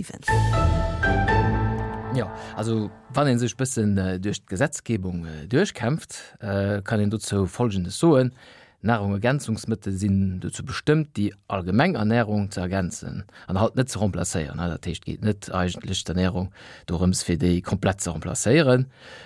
7. Jo, also wann ee sech bëssen duerch d'Gesetzgebung duerchkämpft, kann een dozou Folgendes soen, Nahrungergänzungsmëttel sinn dozou bestëmmt, déi allgemeng Ernährung ze ergänzen an halt net ze remplacéieren. Dat heescht, et geet net eigentlech d'Ernährung dorëms, fir déi komplett ze remplacéieren.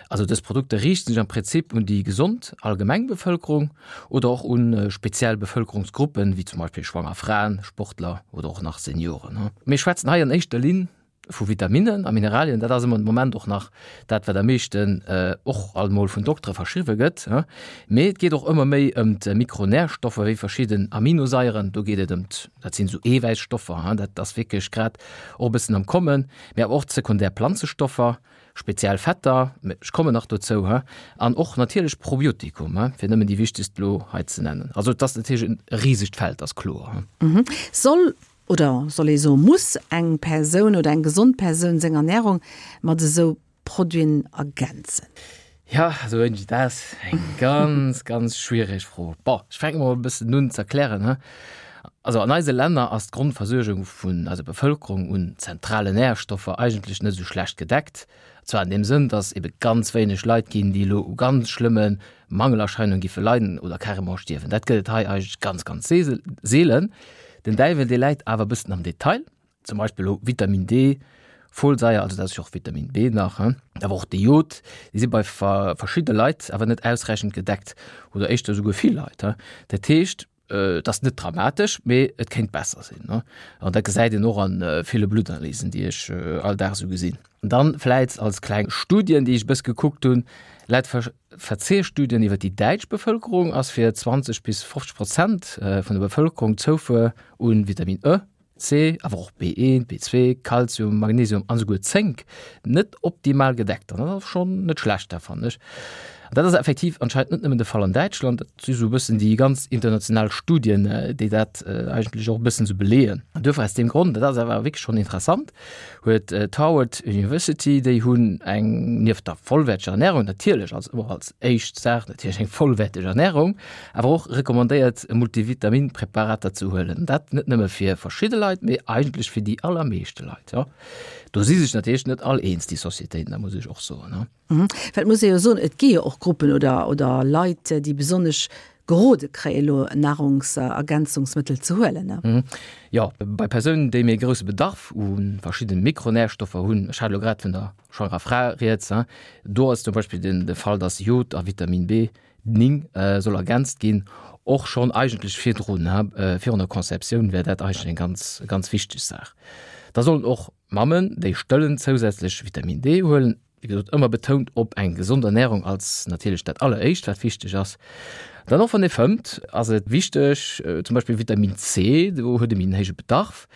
Also dës Produkter riichten sech am Prinzip un déi gesond allgemeng Bevëlkerung oder och un speziell Bevëlkerungsgruppen, wéi zum Beispill schwanger Fraen, Sportler oder och nach Senioren. Mir schwätzen hei an éischter Linn vu Vitaminnen a Mineralien, dat ass ëmmer de Moment och nach dat, wat am meeschten och alt mol vun Doktere verschriwwe gëtt. Mee et geet och ëmmer méi ëm d'Mikronärstoffer wéi verschidden Aminosaieren. Do geet et ëm, dat sinn esou Eewäisstoffer, dat ass wierklech grad och e bëssen am Kommen, mee awer och d'sekundär Planzestoffer, speziell Fetter, ech kommen nach dozou, an och natierlech Probiotikum, fir nëmmen déi wichtegst elo hei ze nennen. Also et ass natierlech e risegt Feld, ass kloer. Soll Oder soll ee soe muss eng Persoun oder eng gesond Persoun seng Ernärung mat esou Produiten ergänzen? Jo, esou Angie, dat ass eng ganz, ganz schwiereg Fro. Bon, ech fänke mol e bëssen un ze erklären, he. Also an eise Länner ass d'Grondversuergung vun eiser Bevëlkerung un zentralen Närstoffer eigentlech net esou schlecht gedeckt. Zwar an deem Sënn, dass ebe ganz wéineg Leit ginn, déi elo u ganz schlëmme Mangelerscheinungen giffe leiden oder carrément stierwen. Dat gëtt et hei eigentlech ganz, ganz seelen. Den Däiwel, dee läit awer e bëssen am Detail. Zum Beispill elo Vitamin D, Folsaier, also dat ass jo och Vitamin B nach, awer och de Jod, déi si bei verschidde Leit awer net ausräichend gedeckt oder éischter esouguer vill Leit. Dat heescht, Et ass net dramatesch, mee et kéint besser sinn. An dat gesäit een och a ville Bluttanalysen, déi ech all Dag esou gesinn. Dann vläit als kleng Studien, déi ech e bësse gekuckt hunn, Laut Verzehrstudien iwwer déi däitsch Bevëlkerung ass fir 20 bis 50 Prozent vun der Bevëlkerung d'Zoufuer u Vitamin E C, awer och B1, B2, Kalzium, Magnesium an esouguer Zénk net optimal gedeckt. An dat ass schonn net schlecht, dat fannen ech. An dat ass effektiv anscheinend net nëmmen de Fall an Däitschland, dat si sou e bëssen déi ganz international Studien, déi dat eigentlech och e bëssen sou beleeën. An duerfir aus deem Grond, dat ass awer wierklech schonn interessant, huet d'Harvard University, déi hunn eng, nieft der vollwäerteger Ernärung natierlech, als ëmmer als éischt Saach natierlech eng vollwäerteg Ernärung, awer och recommandéiert Multivitaminpräparater ze huelen. Dat net nëmme fir verschidde Leit, mee eigentlech fir déi allermeeschte Leit. Jo, do si sech natierlech net all eens, déi Societéiten, dat muss ech och soen. Well et muss ee jo soen, et gi jo och Gruppen oder, oder Leit, déi besonnesch gerode kréien, elo Nahrungsergänzungsmëttel ze huelen, ne? Jo, bei Persounen, déi méi grousse Bedarf u verschiddene Mikronärstoffer hunn, ech hat elo grad vun der schwangerer Fra rieds, do ass zum Beispill den de Fall, dass Jod a Vitamin B 9 soll ergänzt ginn, och schonn eigentlech virdrun, virun der Conceptioun wär dat eigentlech eng ganz, ganz wichteg Saach. Da sollen och Mammen, déi stëllen, zousätzlech Vitamin D huelen. Wéi gesot, ëmmer betount op eng gesond Ernährung als natierlech dat alleréischt, wat wichteg ass. Dann och wann ee fëmmt, ass et wichteg, zum Beispill Vitamin C, do huet ee méi en héije Bedarf.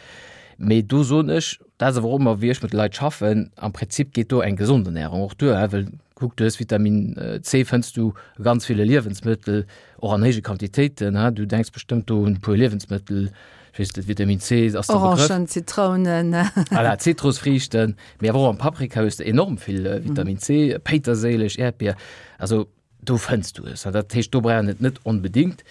Mee do soen ech, dat ass awer och ëmmer wéi ech mat de Leit schaffen, am Prinzip geet do eng gesond Ernährung och duer, well kuck, du hues Vitamin C fënns du a ganz ville Liewensmëttel, och an héije Quantitéiten. Du denks bestëmmt do un e puer Liewensmëttel, Ech weess net, Vitamin C ass de Begrëff. Orangen, Zitrounen. Voilà, Zitrusfriichten, mee awer och am Paprika hues de enorm vill Vitamin C, Péiterséileg, Äerdbier, also do fënns du es. Dat heescht, do brauch een et net onbedéngt.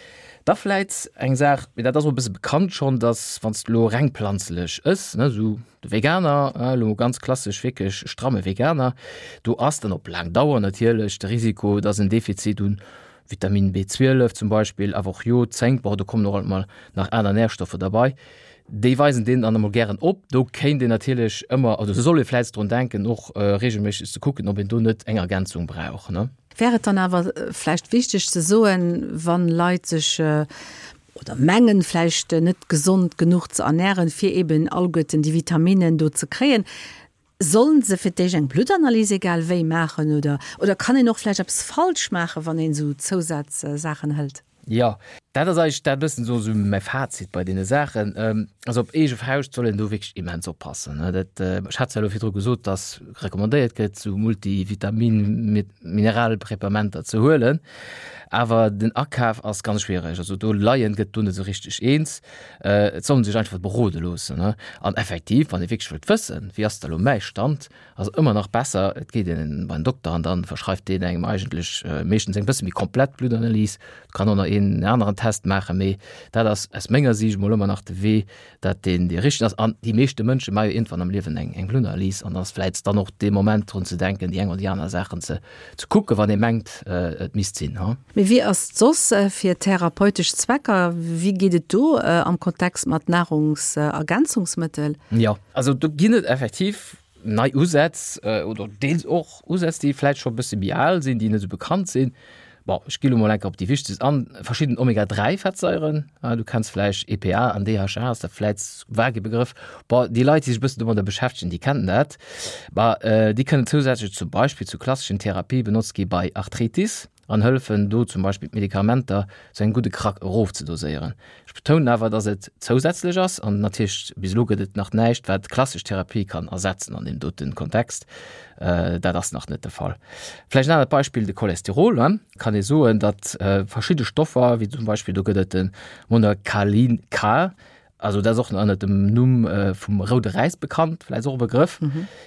Da vläit eng Saach, mee dat ass och e bësse bekannt schonn, dass wann s de elo reng planzelech ëss, ne, esou de Veganer, elo ganz klassesch wierklech stramme Veganer, do ass dann op laang Dauer natierlech de Risiko, dass en Defizit un Vitamin B12 zum Beispill, awer och Jod, Zénk, bon do kommen och alt mol nach aner Närstoffer derbei, déi weisen deen dann emol gären op. Do kéint een natierlech ëmmer, also soll ee vläicht drun denken och reegelméisseg ze kucken, ob een do net eng Ergänzung brauch, ne. Wär et dann awer vläicht wichteg ze soen, wann Leit sech oder mengen vläicht net gesond genuch ze ernären, fir eben alleguerten déi Vitaminnen do ze kréien, Sollen se fir d'éischt eng Bluttanalyse egal wéi maachen oder oder kann een och vläicht eppes falsch maachen, wann een esou Zousazsaachen hëlt? Jo, dat ass eigentlech dat bëssen esou esou mäi Fazit bei deene Saachen. Also op eege Fauscht soll een do wierklech immens oppassen. Dat, ech hat zwar elo virdru gesot, dass recommandéiert gëtt, esou Multivitamin-, Mineralpräpamenter ze huelen, awer den Akaf ass ganz schwiereg. Also do Laien gëtt do net esou richteg eens. Et soll en sech einfach berode loossen. An effektiv, wann ee wierklech wëllt wëssen, wéi ass da lo mäi Stand, ass et ëmmer nach besser, et geet een bei den Dokter an dann verschreift deen engem eigentlech meeschtens eng bësse méi komplett Bluttanalys. Et kann och nach. een aneren Test maachen, mee dat ass aus menger Siicht mol ëmmer nach de Wee, dat deen dee richtegen ass. An déi meeschte Mënsche maache jo iergendwann am Liewen eng eng Bluttanalyse an ass vläicht dann och dee Moment drun ze denken, déi eng oder déi aner Saachen ze ze kucken, wann ee mengt, et misst sinn, ha. Mee wéi ass et soss fir therapeutesch Zwecker? Wéi geet et do am Kontext mat Nahrungsergänzungsmëttel? Jo, also do ginn et effektiv nei Usätz oder deels och Usätz, déi vläicht scho e bësse méi al sinn, déi net esou bekannt sinn. Bon, ech gi lo mol enker op déi wichtegst an, verschidden Omega-3-Fettsaieren, du kenns vläicht EPA an DHA, ass der vläicht vage Begrëff. Bon, déi Leit, déi sech e bëssen domadder beschäftegen, déi kennen dat. Bah, déi kënnen zousätzlech zum Beispill zu klasseschen Therapie benotzt gi bei Arthritis an hëllefen do zum Beispill d'Medikamenter zu engem gudde Krack erofzedoséieren. Ech betounen awer, dass et zousätzlech ass an natierlech bis elo gëtt et nach näischt, wat d'klassesch Therapie kann ersetzen an deem dote Kontext. Dat ass nach net de Fall. Vläicht en anert Beispill, de Cholesterol. Kann ee soen, datt verschidde Stoffer, wéi zum Beispill do gëtt et de Monacolin K, Also dat ass och ënnert dem Numm vum roude Räis bekannt, vläicht och e Begrëff.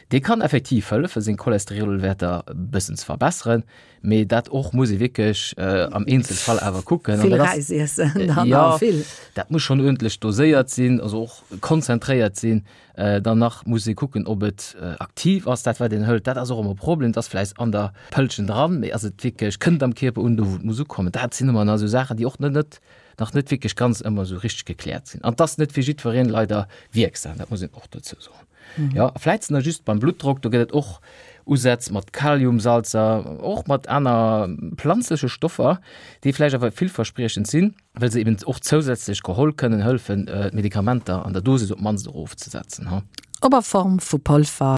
Dee kann effektiv hëllefen, seng Cholesterolwäerter e bëssen ze verbesseren, mee dat och muss ee wierklech am Eenzelfall awer kucken. Vill Räis iessen dann, jo, vill. Dat muss schonn uerdentlech doséiert sinn, also och konzentréiert sinn. Dann nach muss ee kucken, ob et aktiv ass, dat wat een hëlt. Dat ass och ëmmer e Problem, et ass vläicht an der Pëllchen dran, mee ass et wierklech, kënnt am Kierper un, do wou et muss ukommen. Dat sinn ëmmer nach esou Saachen, déi och net net nach net wierklech ganz ëmmer esou richteg gekläert sinn. An 't ass net fir jiddwereen leider wierksam, dat muss een och dozou soen. Jo, a vläit nach just beim Bluttdrock, do gëtt et och Usätz mat Kaliumsalzer, och mat aner planzleche Stoffer, déi vläicht awer villverspriechend sinn, well se eben och zousätzlech geholl kënnen hëllefen, d'Medikamenter an der Dosis op d'mannst erofzesetzen. Ob a Form vu Polver.